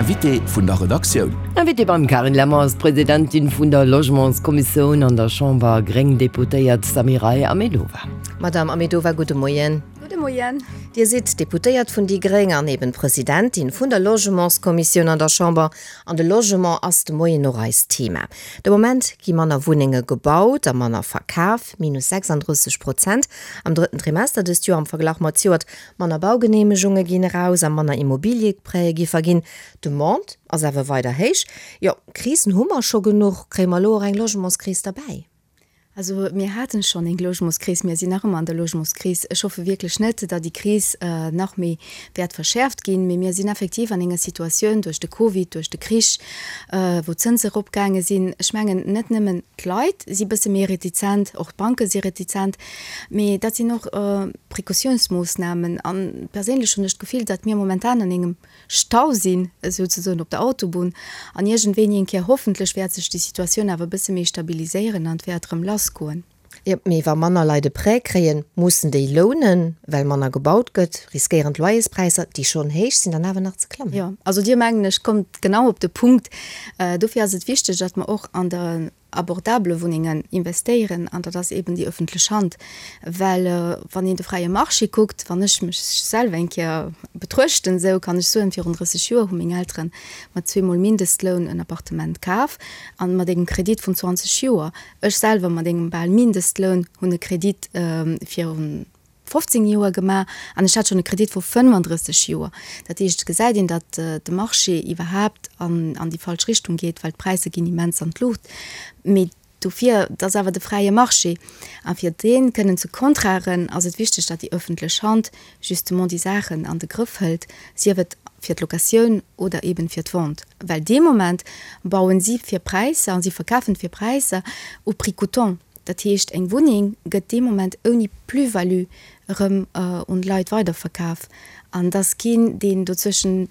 Invité vun der Redaktioun. Invitée beim Carine Lemmer ass d'Presidentin vun der Logementskommissioun an der Chamber, gréng Deputéiert Samiray Ahmedova. Madame Ahmedova, gudde Moien. Gudde Moien. Dir sidd Deputéiert vun déi gréng an eben Presidentin vun der Logementskommissioun an der Chamber. An de Logement ass de Moien och eist Thema. De Moment gi manner Wunnenge gebaut a manner verkaf, minus 36 Prozent am drëtten Trimester dëst Joer am Verglach mat zejoert. Manner Baugeneemegunge ginn eraus a manner Immobilieprêtë gi verginn. D'Demande ass awer weider héich. Jo, Krisen hu mer scho genuch, kréie mer elo och eng Logementskris derbäi? Also mir haten schonn eng Logementskris, mir sinn nach ëmmer an der Logementskris. Ech hoffe wierklech net, datt déi Kris nach méi wäert verschäerft ginn, mee mir sinn effektiv an enger Situatioun duerch de Covid, duerch de Krich, wou d'Zënse eropgaange sinn. Ech mengen, net nëmmen d'Leit si bësse méi retizent, och d'Banke si retizent, mee dat sinn och Precautiounsmoossnamen. A perséinlech hunn ech d'Gefill, datt mir momentan an engem Stau sinn, souzesoen op der Autobunn, an iergendwéini eng Kéier hoffentlech wäert sech déi Situatioun awer e bësse méi stabiliséieren an et wäert erëm lassgoen. Jo, mee wa manner Leit e Prêt kréien, mussen déi lounen, well manner gebaut gëtt, riskéieren d'Loyerspräisser, déi schonn héich sinn, dann awer nach ze klammen. Jo, also Dir, mengen ech, kommt genau op de Punkt. Dofir ass et wichteg, datt mer och an der abordabele Wunnengen investéieren an dat ass eben déi öffentlech Hand, well wann een de fräie Marché kuckt, wann ech mech selwer eng Kéier betruechten, esou kann ech soen, virun 30 Joer hu meng Eltere mat zweemol Mindestloun en Appartement kaf an mat engem Kredit vun 20 Joer. Ech selwer mat engem bal Mindestloun hunn e Kredit virun 15 Joer gemaach an ech hat schonn e Kredit vu 35 Joer. Dat heescht, et gesäit een, datt de Marché iwwerhaapt an an déi falsch Richtung geet, well d'Präisser ginn immens an d'Luucht. Mee dofir, et ass awer de fräie Marché a fir dee kënnen ze kontraren, ass et wichteg, datt déi ëffentlech Hand justement déi Saachen an de Grëff hëlt, sief et fir d'Locatioun oder eben fir d'Vente. Well dee Moment bauen si fir Präisser a si verkafen fir Präisser au prix coûtant. Dat heescht, eng Wunneng gëtt dee Moment ouni Plus-value erëm un d'Leit weiderverkaf. An et ass keen, deen dozwëschen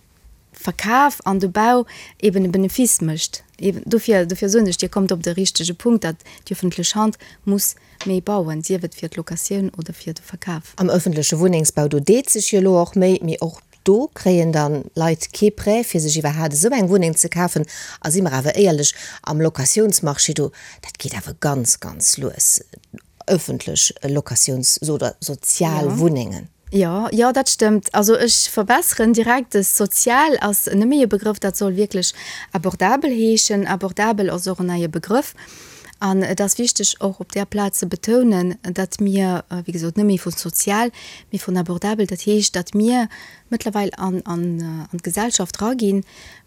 Verkaf an de Bau eben e Benefice mécht. Eben dofir, dofir soen ech, Dir kommt op de richtege Punkt, datt déi öffentlech Hand muss méi bauen, sief et fir d'Locatioun oder fir de Verkaf. Am öffentleche Wunnengsbau, do deet sech jo elo och méi, mee och Do kréien dann Leit kee Prêt fir sech iwwerhaat esou eng Wunneng ze kafen. A si mer awer éierlech, am Locatiounsmarché do, dat geet awer ganz, ganz lues, ëffentlech Locatiouns oder sozial Wunnengen. Jo, jo, dat stëmmt. Also ech verbesseren direkt, de sozial ass net méi e Begrëff, dat soll wierklech abordabel heeschen. Abordabel ass och en neie Begrëff. An et ass wichteg och op där Plaz ze betounen, datt mir, wéi gesot, net méi vu sozial, mee vun abordabel, dat heescht, datt mir mëttlerweil an d'Gesellschaft eraginn,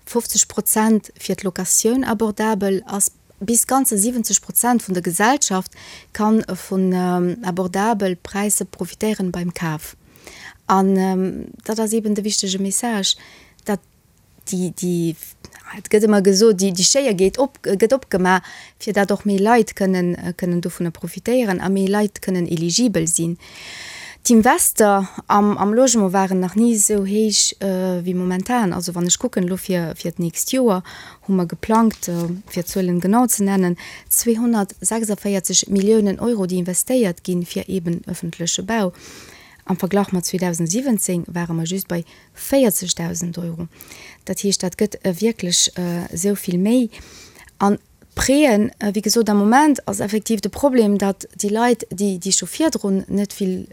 50 Prozent fir d'Locatioun abordabel ass, bis ganzer 70 Prozent vun der Gesellschaft ka vun abordabel Präisser profitéieren beim Kaf. An dat ass eeben de wichtege Message, datt déi, déi, et gëtt ëmmer gesot, déi, déi Schéier geet op, gëtt opgemaach, fir datt och méi Leit kënnen, kënnen dovunner profitéieren a méi Leit kënnen eligibel sinn. D'Invester am, am Logement waren nach ni esou héich wéi momentan. Also wann ech kucken elo fir, fir d'nächst Joer hu mer geplangt, fir d'Zuelen genau ze nennen, 246 Milliounen Euro, déi investéiert ginn fir eeben öffentleche Bau. Am Verglach mat 2017 ware mer just bei 40.000 Euro. Dat heescht, dat gëtt wierklech esou vill méi. An d'Prêten, wéi gesot, am Moment ass effektiv de Problem, datt déi Leit, déi déi scho virdrun net vill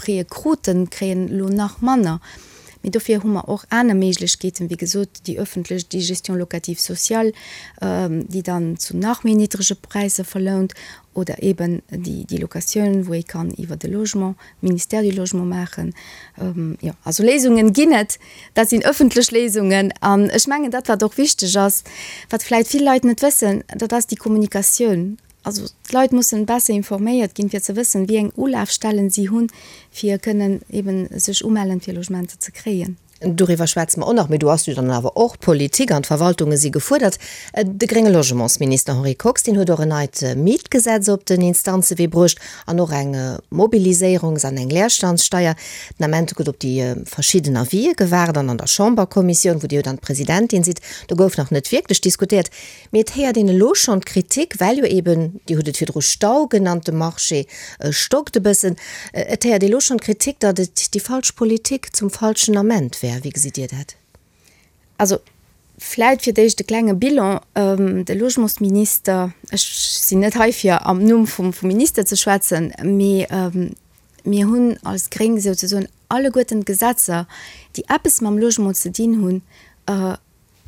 Prêtë kruten, kréien elo nach manner. Mee dofir hu mer och aner Méiglechkeeten, wéi gesot, déi öffentlech, déi Gestion locative sociale, déi dann zu nach méi niddrege Präisser verlount, oder eeben déi Locatioun, wou ee kann iwwer de Logement, Ministère du Logement maachen. Jo, also Léisungen ginn et, dat sinn ëffentlech Léisungen. An ech mengen, dat wat och wichteg ass, wat vläicht vill Leit net wëssen, dat ass déi Kommunikatioun. Also d'Leit mussen besser informéiert ginn, fir ze wëssen, wéi eng Ulafstellen si hunn, fir kënnen eeben sech umellen, fir Logementer ze kréien. Doriwwer schwätze mer och nach, mee do ass jo dann awer och d'Politik an d'Verwaltunge si gefuerdert. De grénge Logementsminister Henri Kox, deen huet och en neit Mietgesetz op den Instanzewee bruecht an och eng Mobiliséierungs an eng Leerstandssteier. Den Ament gëtt op déi verschidden Avisë gewaart an an der Chamberkommissioun, wou Dir jo dann d'Presidentin sidd, do gouf nach net wierklech diskutéiert. Mee et héiert een elo schonn d'Kritik, well jo eben, Dir hutt et virdru Stau genannt, de Marché stockt e bëssen. Et héiert ee elo schonn d'Kritik, datt et déi falsch Politik zum falschen Ament wär. Wéi gesitt Dir dat? Also. Vläit fir d'éischt e klenge Bilan. De Logementsminister, ech sinn net hei fir am Numm vum Minister ze schwätzen, mee mir hunn als Gréng souzesoen alleguerten d'Gesetzer, déi eppes mam Logement ze dinn hunn,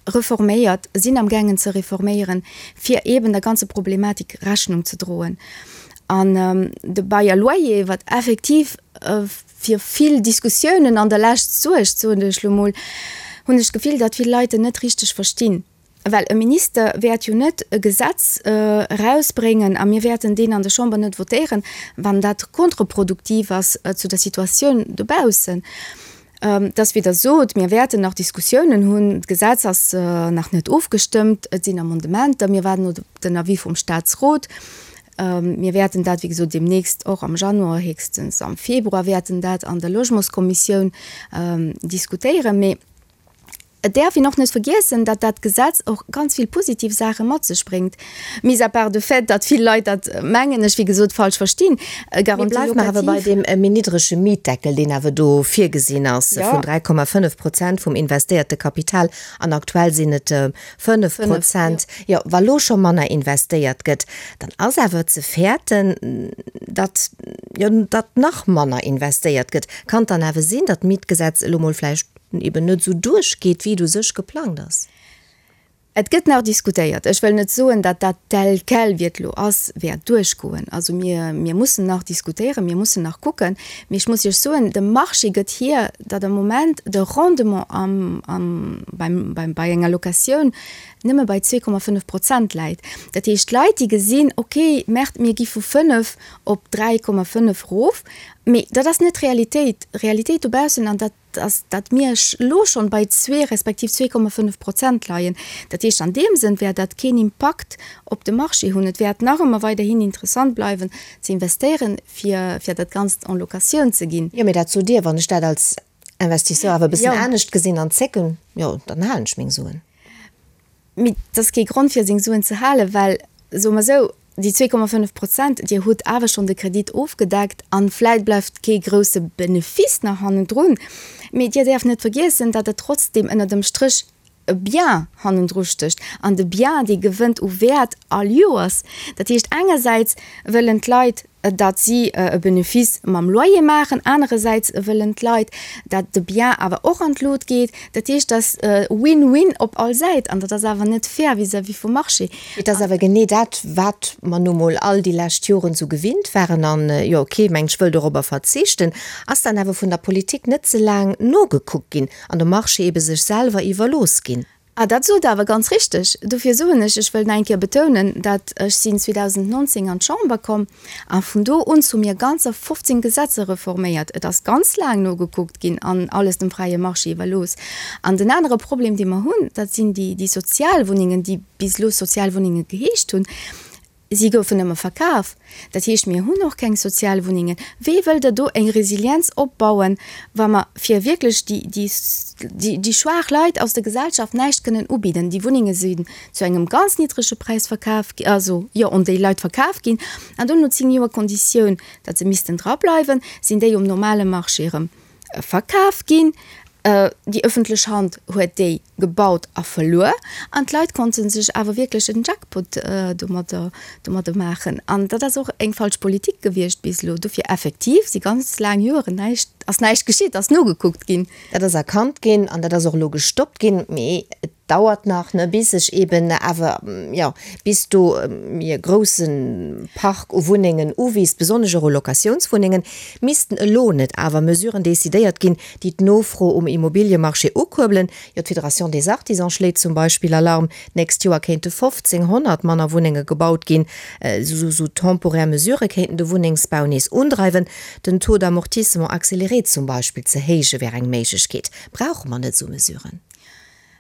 reforméiert, sinn am gaangen ze reforméieren, fir eeben der ganze Problematik Rechnung ze droen. An de Bail à loyer, wat effektiv fir vill Diskussiounen an der Lescht suergt, soen ech lo mol, hunn ech d'Gefill, datt vill Leit en net richteg verstinn. Well e Minister wäert jo net e Gesetz erausbréngen, a mir wäerten deen an der Chamber net votéieren, wann dat kontreproduktiv ass zu der Situatioun dobaussen. Dass, wéi Der sot, mir wäerten nach Diskussiounen hunn. D'Gesetz ass nach net ofgestëmmt, et sinn Amendementer, mir waarden op den Avis vum Statsrot. Mir wäerten dat, wéi gesot, deemnächst och am Januar, héchstens am Februar wäerten dat an der Logementskommissioun diskutéieren. Mee Et däerf een och net vergiessen, datt dat Gesetz och ganz vill positiv Saache mat sech bréngt, mis à part de fait, datt vill Leit dat, mengen ech, wéi gesot, falsch verstinn. Mee Garantie bleift mer awer bei locative. deem méi niddrege Mietdeckel, deen awer do virgesinn ass, vun 3,5 Prozent vum investéierte Kapital, an aktuell sinn et 5 Prozent. Jo, wa lo scho manner investéiert gëtt, dann ass awer ze fäerten, datt, jo, datt nach manner investéiert gëtt. Kann et dann awer sinn, datt d'Mietgesetz elo mol vläicht eben net esou duerchgeet, wéi et u sech geplangt ass. Et gëtt nach diskutéiert. Ech wëll net soen, datt dat tel quel, wéi et elo ass, wäert duerchgoen. Also mir, mir mussen nach diskutéieren, mir mussen nach kucken. Mee ech muss Iech soen, de Marché gëtt hier, datt am Moment de Rendement am, am, beim, beim, bei enger Locatioun nëmme bei 2,5 Prozent läit. Dat heescht, d'Leit, déi gesinn, okay, Merde, mir gi vu 5 op 3,5 erof, mee dat ass net d'Realitéit. D'Realitéit dobaussen, an dat, dass dat mir elo schonn bei zwee respektiv 2,5 Prozent leien. Dat heescht, an deem Sënn wäert dat keen Impakt op de Marché hunn. Et wäert nach ëmmer weiderhin interessant bleiwen ze investéieren, fir fir dat Ganzt en Locatioun ze ginn. Jo, mee dat sot Dir. Wann ech dat als Investisseur awer e bëssen anescht gesinn an zécken, jo, dann halen ech meng Suen. Mee et ass kee Grond fir seng Suen ze halen, well, soe mer esou, déi 2,5 Prozent, Dir hutt awer schonn de Kredit ofgedeckt an vläit bleift kee grousse Benefice nach hannendrun, mee Dir däerft net vergiessen, datt et trotzdem ënner dem Stréch e Bien hannendru stécht an de Bien, dee gewënnt u Wäert all Joers. Dat heescht, engersäits wëllen d'Leit, datt si e Benefice mam Loyer maachen, anerersäits wëllen d'Leit, datt de Bien awer och an d'Lut geet. Dat heescht, dat ass Win-win op all Säit an dat ass awer net fair vis-à-vis vum Marché. Et ass awer genee dat, wat mer nu mol all déi lescht Joren esou gewinnt waren an, jo, kee Mensch wëll dorobber verzichten, ass dann awer vun der Politik net ze laang nogekuckt ginn an de Marché ebe sech selwer iwwerlooss ginn. Ah, dat sot Der awer ganz richteg. Dofir soen ech, ech wëll nach eng Kéier betounen, dat ech sinn 2019 an d'Chamber komm a vun do un hu mir ganzer 15 Gesetzer reforméiert. Et ass ganz laang nogekuckt ginn an alles dem fräie Marché iwwerlooss. An den anere Problem, dee mer hunn, dat sinn déi, déi Sozialwunnengen, déi bis elo Sozialwunnenge geheescht hunn. Si goufen ëmmer verkaf. Dat heescht, mir hunn och keng Sozialwunnengen. Wéi wëllt Der do eng Resilienz opbauen, wa mer fir wierklech déi, déi, déi schwaach Leit aus der Gesellschaft näischt kënnen ubidden? Déi Wunnenge sinn zu engem ganz niddrege Präis verkaf gi, also jo, un déi Leit verkaf ginn. An dono 10 Joer Konditioun, datt se missten drableiwen, sinn déi um normale Marché erëm verkaf ginn. Déi ëffentlech Hand huet déi gebaut a verluer an d'Leit konnte sech awer wierklech en Jackpot domadder domadder maachen. An dat ass och eng falsch Politik gewiescht bis elo. Dofir effektiv si ganz laang Joeren näischt, ass näischt geschitt, ass nogekuckt ginn. Dat ass erkannt ginn an dat ass och elo gestoppt ginn. Mee et dauert nach, ne, bis sech eben awer, jo, bis do e grousse Park u Wunnengen uwiisst, besonnesch och u Locatiounswunnengen, missten elo net awer Mesuren decidéiert ginn, déi d'Nofro um Immobiliemarché ukuerbelen. Jo, d'Fédération des Artisans schléit zum Beispill Alarm, d'nächst Joer kéinte 1.500 manner Wunnenge gebaut ginn. Esou temporär Mesurë kéinten de Wunnengsbau nees undreiwen. Den Taux d'amortissement accéléré zum Beispill ze héije wär eng Méiglechkeet. Brauche mer net esou Mesuren?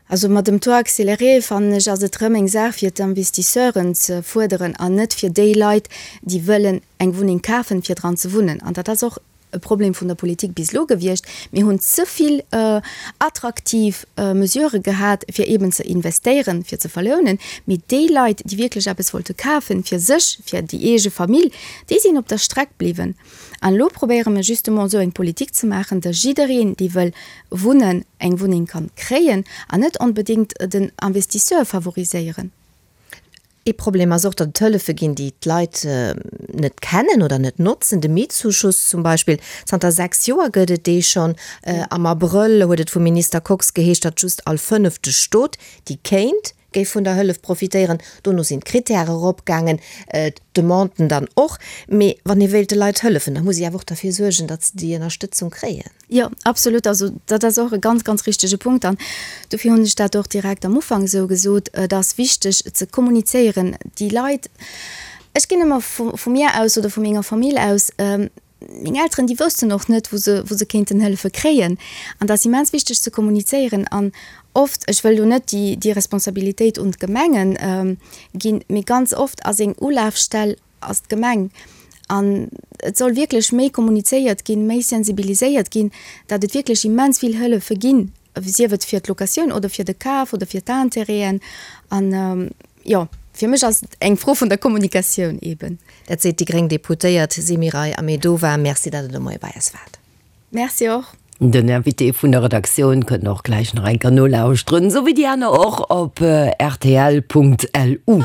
Also mat dem Taux accéléré, fannen ech, ass et rëm eng Saach fir d'Investisseuren ze fuerderen an net fir déi Leit, déi wëllen eng Wunneng kafen, fir dran ze wunnen. An dat ass och. e Problem vun der Politik bis elo gewiescht, mir hunn ze vill attraktiv Mesurë gehat, fir eeben ze investéieren, fir ze verlounen, mee déi Leit, déi wierklech eppes wollte kafen, fir sech, fir déi eege Famill, déi sinn op der Streck bliwwen. An elo probéiere mir justement esou eng Politik ze maachen, datt jiddereen, dee wëll wunnen, eng Wunneng kann kréien an net onbedéngt den Investisseur favoriséieren. Ee Problem ass och, datt et Hëllefe ginn, déi d'Leit net kennen oder net notzen. De Mietzuschuss zum Beispill, zanter 6 Joer gëtt et dee schonn. Am Abrëll huet et vum Minister Kox geheescht, datt just all fënnefte Stot, déi kéint, géif vun der Hëllef profitéieren. Dono sinn d'Krittäre eropgaangen, d'Demanden dann och. Mee wann ee wéilt de Leit hëllefen, da muss ee awer och derfir suergen, datt se déi Ënnerstëtzung kréien. Jo, absolut. Also dat ass och e ganz, ganz richtege Punkt. An dofir hunn ech dat och direkt am Ufank esou gesot, Et ass wichteg ze kommunizéieren. Déi Leit, ech ginn ëmmer vu mir aus oder vu menger Famill aus, Meng Elteren, déi woussten och net, wou se, wou se kéinten Hëllefe kréien. An dat ass immens wichteg ze kommunizéieren. An oft, ech wëll do net déi, déi Responsabilitéit un d'Gemengen ginn, mee ganz oft ass eng Ulafstell ass d'Gemeng. An et soll wierklech méi kommunizéiert ginn, méi sensibiliséiert ginn, datt et wierklech immens vill Hëllefe ginn, sief et fir d'Locatioun oder fir de Kaf oder fir d'Intérêten. An Jo, fir mech ass et eng Fro vun der Kommunikatioun eben. Dat seet déi gréng Deputéiert Semiray Ahmedova. Merci, datt Der de Moie bei eis waart. Merci och. Den Invité vun der Redaktioun kënnt och gläich nach eng Kéier nolauschteren, esou wéi déi aner och op rtl.lu.